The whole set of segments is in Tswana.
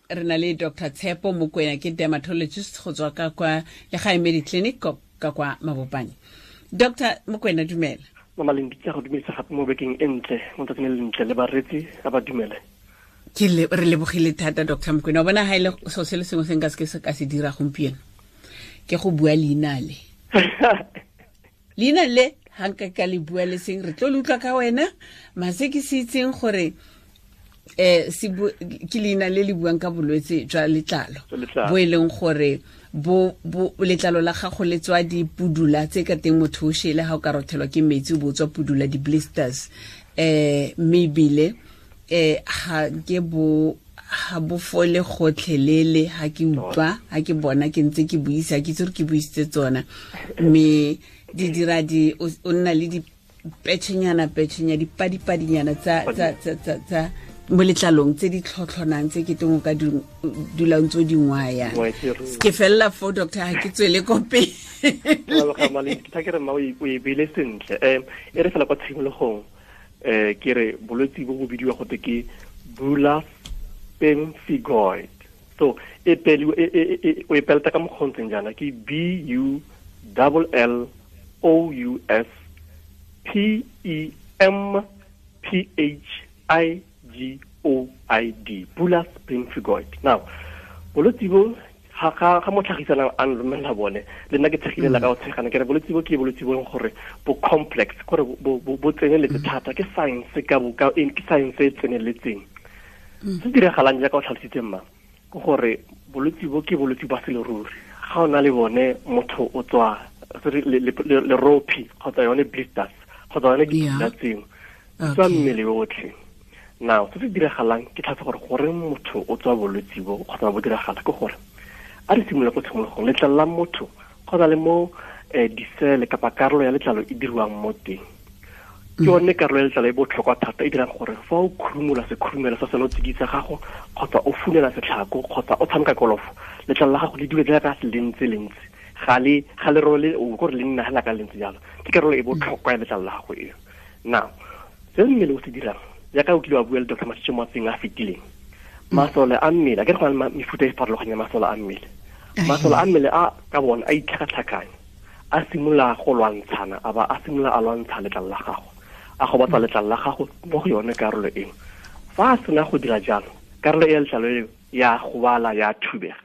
Re na le Dr Tshepo Mokwena, ke dermatologist go tswa ka kwa Legae Mediclinic ka kwa Mabopane. Dr Mokwena, dumela. Mama Lendi, ke go dumedisa gape mo bekeng e ntle, mo tsatsing le lentle, le bareetsi a ba dumele. Ke le re lebogile thata, Dr Mokwena. O bona, ga ile e so se le sengwe se nka se ke se ka se dira gompieno ke go bua leina le. Leina le ga nka ka le bua le seng, re tlo le utlwa ka wena. Mase ke se itseng gore se ke leina le le buang ka bolwetse jwa letlalo bo e leng gore bo letlalo la gago le tswa dipudula tse ka teng motho o shele ga o ka rothelwa ke metsi o bo tswa pudula, di-blisters, mme ebile ga ke bo ga bo fole gotlhelele. Ha ke utlwa, ha ke bona ke ntse ke buisa, ke itse gore ke buisitse tsona, mme di dira di o nna le di petšhenyana petšhenya, dipadipadinyana tsa mo letlalong tse di tlhotlhonang, tse ke teng o ka dulang tse di ngwaya. Ke felela fo, doctor, ga ke tswele ko pele. Ke ke re mma, o e beile sentle. E re fela kwa tshimologong, ke re bolwetse bo bo bidiwa gote ke bullous pemphigoid. So e peli o e peleta ka mokgontseng jaana, ke B U double L O U S P E M P H I G O I D, bullous pemphigoid. Now, bolwetse bo ga mo tlhagisanang a nromelela bone, le nna ke tshegile la ka o tshegana, ke re bolwetse bo ke bolwetse bo leng gore bo complex, gore bo tseneletse thata, ke science ka bo ka ke science e tseneletseng. Se diragalang, jaaka o tlhalositse mma, ke gore bolwetse bo ke bolwetse ba seleruri. Ga o na le bone, motho o tswa lerophi kgotsa yone blisters kgotsa yone dipula tseo di tswa mmele otlhe. Now, se se diragalang ke tlhatse gore goreng motho o tswa bolwetse bo kgotsa bo diragala ke gore a re simolola ko tshimologong. Letlalo la motho kgotsa le mo disele kapa karolo ya letlalo e diriwang mo teng, ke yone karolo ya letlalo e botlhokwa thata e dirang gore fa o khurumola sekhurumelo sa senotsididi sa gago kgotsa o funela setlhako kgotsa o tshameka kolofo, letlalo la gago le dule jaaka le ntse le ntse, ga le role o gore le nna hela ka le ntse jalo. Ke karolo e botlhokwa ya letlalo la gago eo. Now, se mmele o se dirang, jaaka o kile wa bua le Dr Masitse mo matseng a fetileng, masole a mmele a ke re go na le mefuta e farologanyeng ya masole a mmele. Masole a mmele a ka bone a itlhakatlhakanya, a simolola go lwantshana, a ba a simolola a lwantsha letlalo la gago, a gobatsa letlalo la gago mo go yone karolo eo. Fa a sena go dira jalo, karolo e ya letlalo eo ya gobala, ya thubega.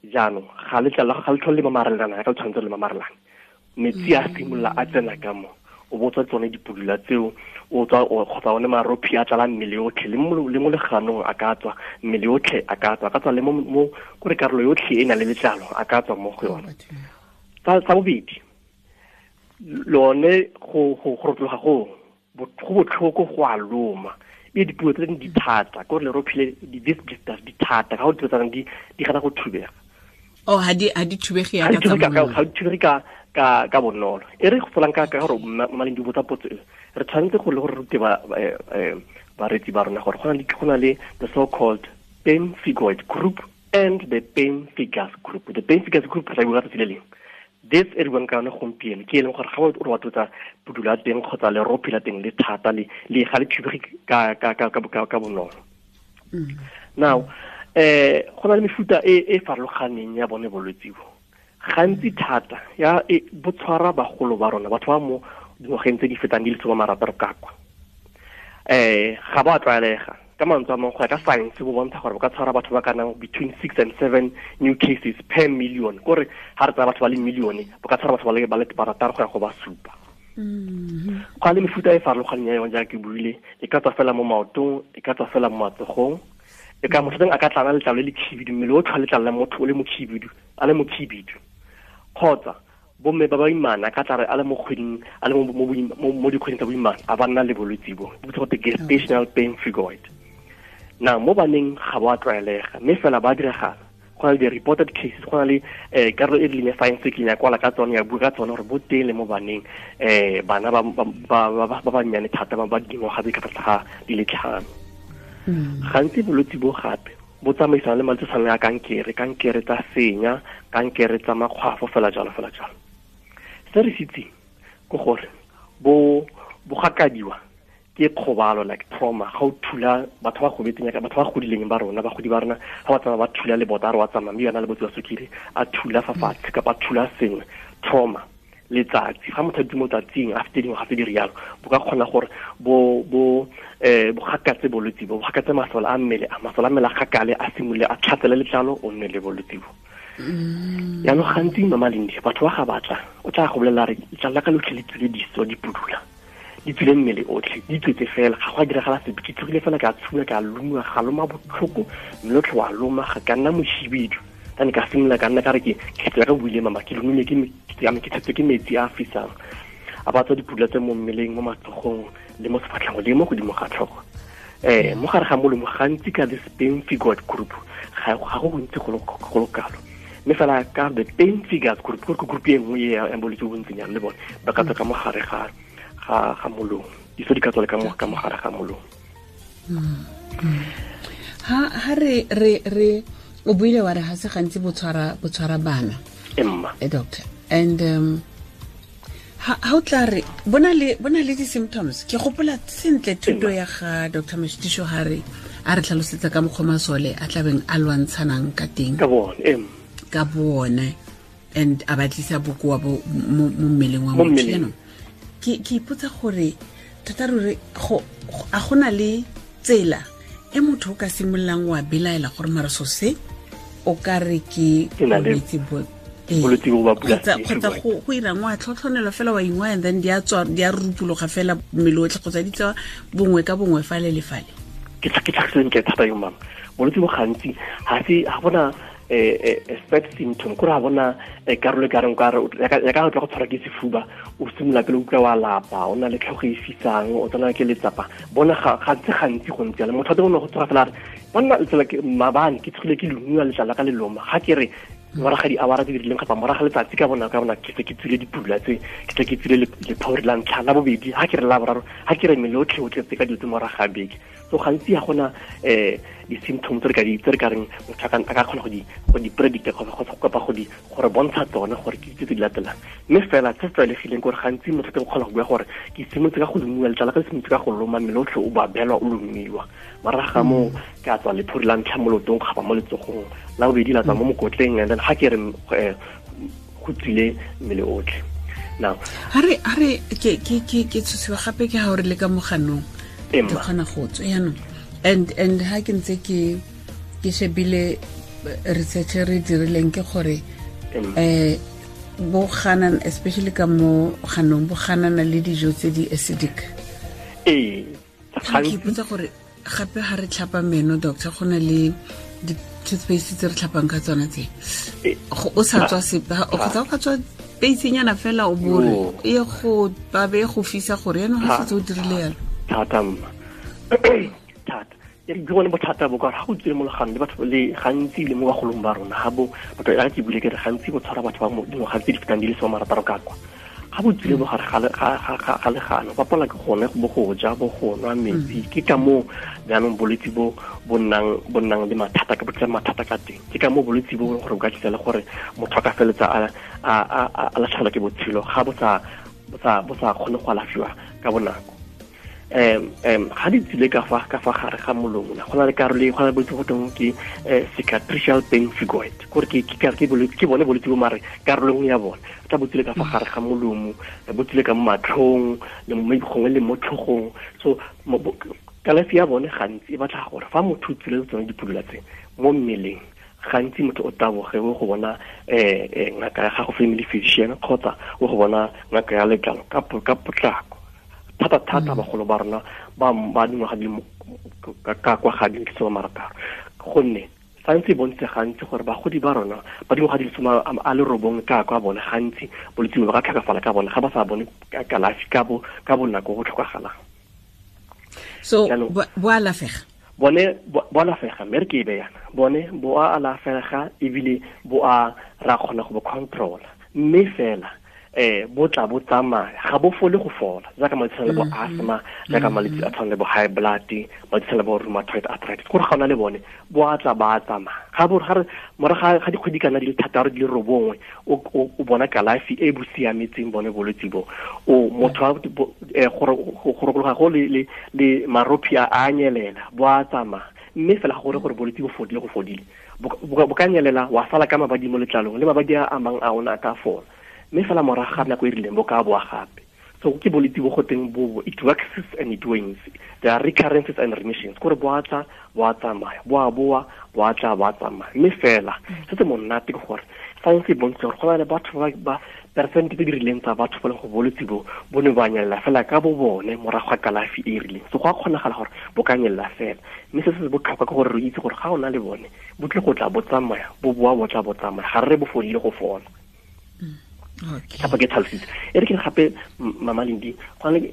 Jaanong ga letlalo la gago ga le tlhole le mamarelana ya ka le tshwanetse le mamarelana. Metsi a simolola a tsena ka mo, o botswa tsone dipudula tseo, o tswa kgotsa one marophi a tlala mmele otlhe, le mo leganong a ka tswa, mmele otlhe a ka tswa, a ka tswa le mo kore karolo yotlhe e na le letlalo a ka tswa mo go yone. Sa bobedi, lone go rotloga go botlhoko, go a loma, e dipuo tse dingwe di thata, ke gore lerophi le di-disc blisters di thata ka go dilo tsa di gana go thubega. Oh, ha di thubege ya ka tsa, ga di thubege ka bonolo. E re go tsolang ka gore maleng di botsa potso e, re tshwanetse go le gore rute ba bareetsi ba rona gore go na le the so called pemphigoid group and the pemphigus group. The pemphigus group re bua tsatsi le lengwe. This e re buang ka yone gompieno ke e leng gore ga o re wa tlotsa pudula teng kgotsa lerophi la teng le thata, le ga le thubege ka bonolo. Now, go na le mefuta e e farologaneng ya bone bolwetse bo. Gantsi thata ya e, bo tshwara bagolo ba rona, batho ba mo dingwageng tse di fetang di le 60 ka kwa. Ga ba tlwaelega. Ka mantswe a mangwe, go ya ka science, bo bontsha gore bo ka tshwara batho ba ka nang between 6 and 7 new cases per million, kore ga re tsaya batho ba le millione, bo ka tshwara batho ba le 6 go ya go ba 7. Go le mefuta e farologaneng ya yone, jaaka ke buile, e ka tswa fela mo maotong, e ka tswa fela mo matsogong, e ka motho teng a ka tlala letlalo le le khibidu, mmele o tlhwa letlalo la motho o le mokhibidu, a le mokhibidu, kgotsa bomme ba baimana ka tlare a le mo kgweding, a le mo dikgweding tsa boimana, a ba nna le bolwetse bo bo bitsa gote gestational pemphigoid. Na mo baneng ga bo a tlwaelega, mme fela ba diragala. Go na le di-reported cases, go na le karolo e rileng ya science e kileng ya kwala ka tsone, ya bua ka tsone gore bo teng le mo baneng, bana ba bannyane thata, ba dingwaga tse ka tlase ga di le 5. Gantsi bolwetse bo gape bo tsamaisana le malwetse tshwana ya kankere, kankere tsa senya, kankere tsa makgwafo, fela jalo, fela jalo. Se re se itseng ke gore bo gakadiwa. Ke kgobalo, like trauma. Ga o thula batho ba gobetseng ya batho ba godileng ba rona, bagodi ba rona, ga ba tsamaya ba thula lebota, a re wa tsamaya mme yona le botse ba sukiri, a thula fa fatshe kapa a thula sengwe, trauma. Letsatsi, ga motho a dutse mo tsatsing a fete dingwaga tse di rialo, bo ka kgona gore bo gakatse bolwetse bo, bo gakatse masole a mmele, a masole a mmele a gakale, a simolole a tlhatsele letlalo, o nne le bolwetse bo. Jaanong gantsi Mama Lindi, batho ba ga batla, o tla go bolelela re letlalo la ka lotlhe le tswile diso, di pudula, di tswile mmele otlhe, di tswetse fela, ga go a diragala sepe, ke tsogile fela ka tshula, ka loma, ga loma botlhoko, mme otlhe wa loma, ga ka nna mohibidu. Tane ka simolola ka nna ka re ke tsela ka buile mama, ke lomile ke ke tshetswe ke metsi a a fisang, a ba tswa dipudula tse mo mmeleng, mo matsogong le mo sefatlhego le mo godimo ga tlhogo. Mo gare ga molomo gantsi ka this pemphigoid group ga go gontsi go le kalo, mme fela ka the pemphigus group, ke group e nngwe ya bolwetse bo bontsinyana le bone ba ka tswa ka mo gare ga molomo, diso di ka tswa le ka mo gare ga molomo. Ha re o buile wa re ga se gantsi bo tshwara bana, Emma. Doctor, and ha o tla re bona le di-symptoms, ke gopola sentle thuto ya ga Dr. Moshitisho ha re a re tlhalosetsa ka mokgwa masole a tlabeng a lwantshanang ka teng ka bone, and a ba tlisa bokoa bo mo mmeleng wa motho. Jaanong ke ipotsa gore tota ruri a gona le tsela e motho o ka simololang wa belaela gore mara so se o ka re ke bolwetse bo kgotsa go irang wa tlhotlhonelo fela wa ingwa, and then di a rupologa fela mmele otlhe, kgotsa di tsewa bongwe ka bongwe fale le fale. Ke tlhagiseng thata yo mama, bolwetse bo gantsi ga bona set symptom, kore ga bona karolo e kareng ya ka tla go tshwara ke sefuba, o simolola pele o utlwa wa lapa, o na le tlhogo e fisang, o tsena ke letsapa. Bona gantsi go ntse jalo, motho wa teng o ne go tsoga fela a re banna letsala ke maabane ke tsogile ke lomiwa letlalo ka leloma, ga ke re moraga di-hour tse di rileng kapa moraga letsatsi ka bona ke se ke tswile dipula tse, ke se ke tswile lephori la ntlha, la bobedi, ga ke re la boraro, ga ke re mmele otlhe o tletse ka dilo tse moraga ga beke. So gantsi ga gona di-symptoms tse re ka reng motho a ka kgona go di predicta kapa go re bontsha tsone gore ke tse di latelang. Mme fela se se tlwaelegileng gore gantsi motho o kgona go bua gore ke simolotse ka go lomiwa letlalo ka, simolotse ka go loma, mmele otlhe o babelwa o lomiwa, morago ga moo ke a tswa lephori la ntlha mo leotong kgapa mo letsogong, la bobedi la tswa mo mokotleng, and then ga ke re go tswile mmele otlhe. Now ha re ke tshosiwa gape ke ha o re le ka moganong ke kgona go tswa jaanong, and ha ke ntse ke shebile research re dirileng ke gore bo ganana, especially ka mo ganong, bo ganana le dijo tse di acidic. Ke ipotsa gore gape ha re tlhapa meno, doctor, go na le di-toothpaste tse re tlhapang ka tsona tse, o sa tswa sepe, kgotsa o ka tswa peisenyana fela o bore e go babe go fisa gore yaanong ga setse o dirile yalo. Thata mma, thata. Ke bone bothata bo ka gore ga go tswile mo leganong le batho le gantsi le mo bagolong ba rona, ga bo batho ya ke bule ke re gantsi bo tshwara batho ba dingwaga tse di fetang di le 60 ka kwa. Ga bo tswile mo gare ga legano, ba palelwa ke gone bo go ja, bo go nwa metsi. Ke ka moo jaanong bolwetse bo bo nnang le mathata, ka bo tla mathata ka teng. Ke ka moo bolwetse bo gore bo ka tlisa le gore motho a ka feletsa a latlhegelwa ke botshelo ga bo sa kgone go alafiwa ka bonako. Ga di tsile ka fa gare ga molomo, go na le karolo e go na le bolwetse go teng ke cicatricial pemphigoid, gore ke bone bolwetse bo mare karolo nngwe ya bone tla bo tsile ka fa gare ga molomo, bo tsile ka mo matlhong le mo gongwe le mo tlhogong. So kalafi ya bone gantsi e batla gore fa motho o tsile tsone dipudula tse mo mmeleng, gantsi motho o taboge o go bona ngaka ya gago, family physician, kgotsa o go bona ngaka ya letlalo ka potlako. Thata bagolo ba rona ba dingwaga di ka kwa ga di 60, gonne science e bontse gantsi gore bagodi ba rona ba dingwaga di 69 ka kwa bone gantsi bolwetse bo ka tlhokafala ka bone ga ba sa bone kalafi ka bonako go tlhokagalang. So bo alafega, bone bo alafega, mme re ke e be yana, bone bo a alafega ebile bo a ra kgona go bo controla, mme fela Bo tla bo tsamaya, ga bo fole go fola, jaaka malwetse a tshwana le bo asthma, jaaka malwetse a tshwana le bo high blood, malwetse a tshwana le bo rheumatoid arthritis. Gore ga o na le bone, bo a tla ba tsamaya. Ga bo ga re morago ga dikgwedi kana di le 6 di le 9, o bona kalafi e bo siametseng bone bolwetse bo. O motho a gore go rokologa go le marophi a nyelela, bo a tsamaya. Mme fela ga gore bolwetse bo fodile go fodile. Bo ka nyelela, wa sala ka mabadi mo letlalong, le mabadi a amang a ona a ka fola. Mme fela morago ga nako e rileng bo ka boa gape. So ke bolwetse bo go teng bo, it waxes and it wanes. There are recurrences and remissions. Kore bo a tla, bo a tsamaya, bo a boa, bo a tla, bo a tsamaya. Mme fela se se monate ke gore science e bontsha gore go na le batho ba percent tse di rileng tsa batho ba leng go bolwetse bo, bo ne ba nyelela fela ka bo bone morago ga kalafi e e rileng. So go a kgonagala gore bo ka nyelela fela. Mme se se botlhokwa ke gore re itse gore ga o na le bone, bo tle go tla bo tsamaya, bo boa bo tla bo tsamaya, ga re re bo fodile go fola. Gape ke tlhalositse. E re ke gape Mama Lindi, go na le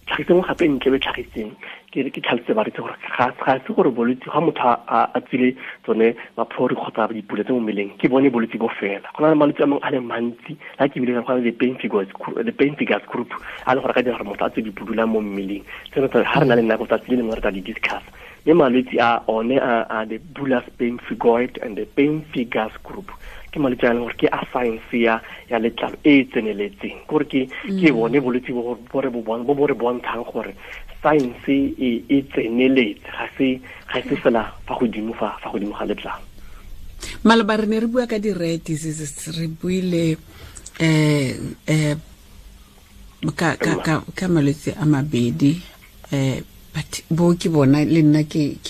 tlhagiseng gape ntle le tlhagiseng, ke re ke tlhalositse ba re itse gore ga se gore bolwetse ga motho a tswile tsone maphori kgotsa dipula tse mo mmeleng, ke bone bolwetse bo fela. Go na le malwetse a mangwe a le mantsi, la ke bile go na le the pemphigus group, a le gore ka dira gore motho a tswe dipudula mo mmeleng. Tseno tsa ga re na le nako tsatsi le lengwe re tla di discuss. Mme malwetse a one a the bullous pemphigoid and the pemphigus group, ke malwetse a leng gore ke a science ya letlalo e e tseneletseng. Ke gore ke bone bolwetse bo bo re bo bon-, bo bo re bontshang gore science e tseneletse, ga se fela fa godimo fa godimo ga letlalo. Maloba re ne re bua ka di-rare diseases, re buile, ka malwetse a mabedi, but bo ke bona le nna ke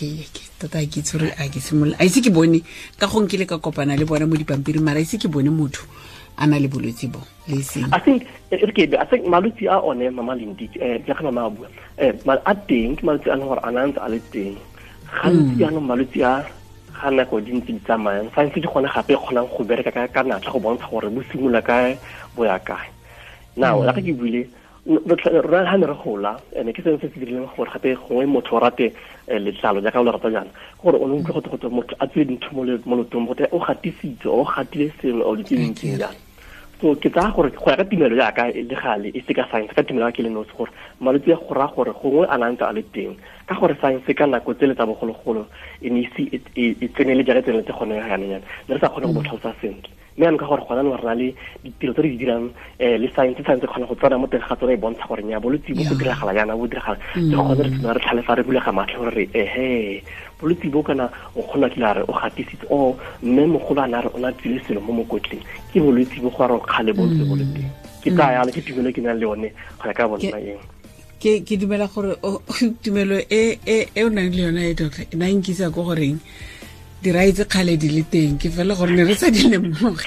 tota ke itse gore a ke simolola, a ise ke bone ka go nkile ka kopana le bona mo dipampiring, mara ise ke bone motho a na le bolwetse bo le seng. I think, e re ke be, I think malwetse a one, Mama Lindi, jaaka mama a bua, a teng, ke malwetse a leng gore a na ntse a le teng. Gantsi jaanong malwetse a ga nako di ntse di tsamayang, science ke gone gape e kgonang go bereka ka natla go bontsha gore bo simolola kae, bo ya kae. Now, jaaka ke buile, rona ha ne re gola, ene ke sengwe se se dirileng gore gape gongwe motho o rate letlalo jaaka o le rata jaana, gore o ne o utlwe gote motho a tswile dintho mo lotong, gote o gatisitse, o gatile sengwe, o ditse dintsi jaana. So ke tsaya gore go ya ka tumelo jaaka e le gale, e se ka science, ka tumelo ya ke le nosi, gore malwetse a go raya gore gongwe a na ntse a le teng, ka gore science ka nako tsele tsa bogologolo e ne ise e tsenele jaaka e tseneletse gone jaanong jaana, ne re sa kgone go bo tlhalosa sentle. Mme jaanong ka gore gona jaanong re na le ditiro tse re di dirang, le science, science e kgona go tsena mo teng ga tsone e bontsha gore nnyaa, bolwetse bo go diragala jaana, bo diragala. Ke gone re tsena re tlhalefa, re bulega matlho gore re, ehe, bolwetse bo kana o kgona kile a re o gatisitse, o mme mogolo a ne a re o ne a tswile selo mo mokotleng, ke bolwetse bo go a re kgale bo ntse bo le teng. Ke tsaya yalo, ke tumelo e ke nang le yone go ya ka bona eng. Ke dumela gore tumelo e o nang le yone e, doctor, e na e nkisa ko goreng dirai tse kgale di le teng, ke fela gore ne re sa di lemoge.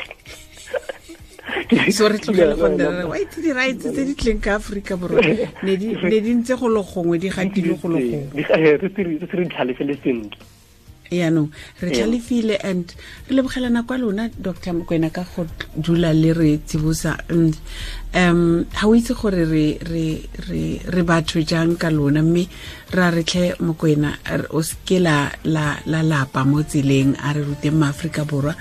So re tlogele go nna re re, wa itse dirai tse di tleng ka Aforika Borwa, ne di ntse go le gongwe, di gatile go le gongwe. Di, re se re, re se re tlhalefele sentle. Yaanong re tlhalefile and re lebogela nako ya lona, Doctor Mokoena, ka go dula le re tsibosa. And ha o itse gore re batho jang ka lona, mme ra re tlhe Mokoena, o seke la lapa mo tseleng, a re ruteng maAforika Borwa,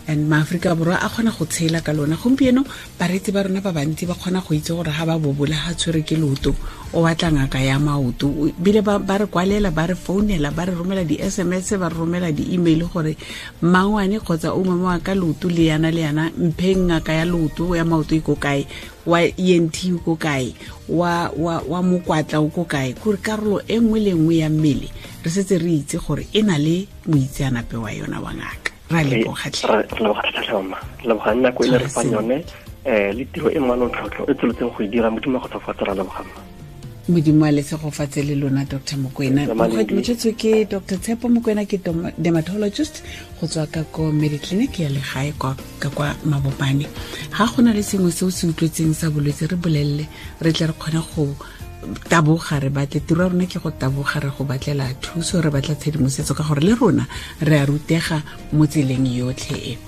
and maAforika Borwa a kgona go tshela ka lona. Gompieno bareetsi ba rona ba bantsi ba kgona go itse gore ha ba bobola, ha tshwere ke leoto, o batla ngaka ya maoto. Bile ba re kwalela, ba re founela, ba re romela di-S M S, ba re romela di-email gore mangwane kgotsa o mongwe wa ka leoto le yana le yana, mpheng ngaka ya leoto, ya maoto e ko kae, wa ENT o ko kae, wa mokwatla o ko kae. Kore karolo e nngwe le nngwe ya mmele re setse re itse gore e na le moitseanape wa yona wa ngaka. Ra leboga tlhe. Re leboga thata tlhe, mama. Re leboga nako e le re fang yone, le tiro e manontlhotlho e tsweletseng go e dira. Modimo a go tshegofatse, ra leboga, mma. Modimo a le tshegofatse le lona, Doctor Mokoena. Re leboga. Motšhetso ke Doctor Tshepo Mokoena, ke dermatologist go tswa ka ko Mediclinic ya legae ka kwa Mabopane. Ha go na le sengwe se o se utlwetseng sa bolwetse, re bolelele, re tle re kgone go taboga, re batle tiro ya rona ke go taboga, re go batlela thuso, re batla tshedimosetso, ka gore le rona re a rutega mo tseleng yotlhe e.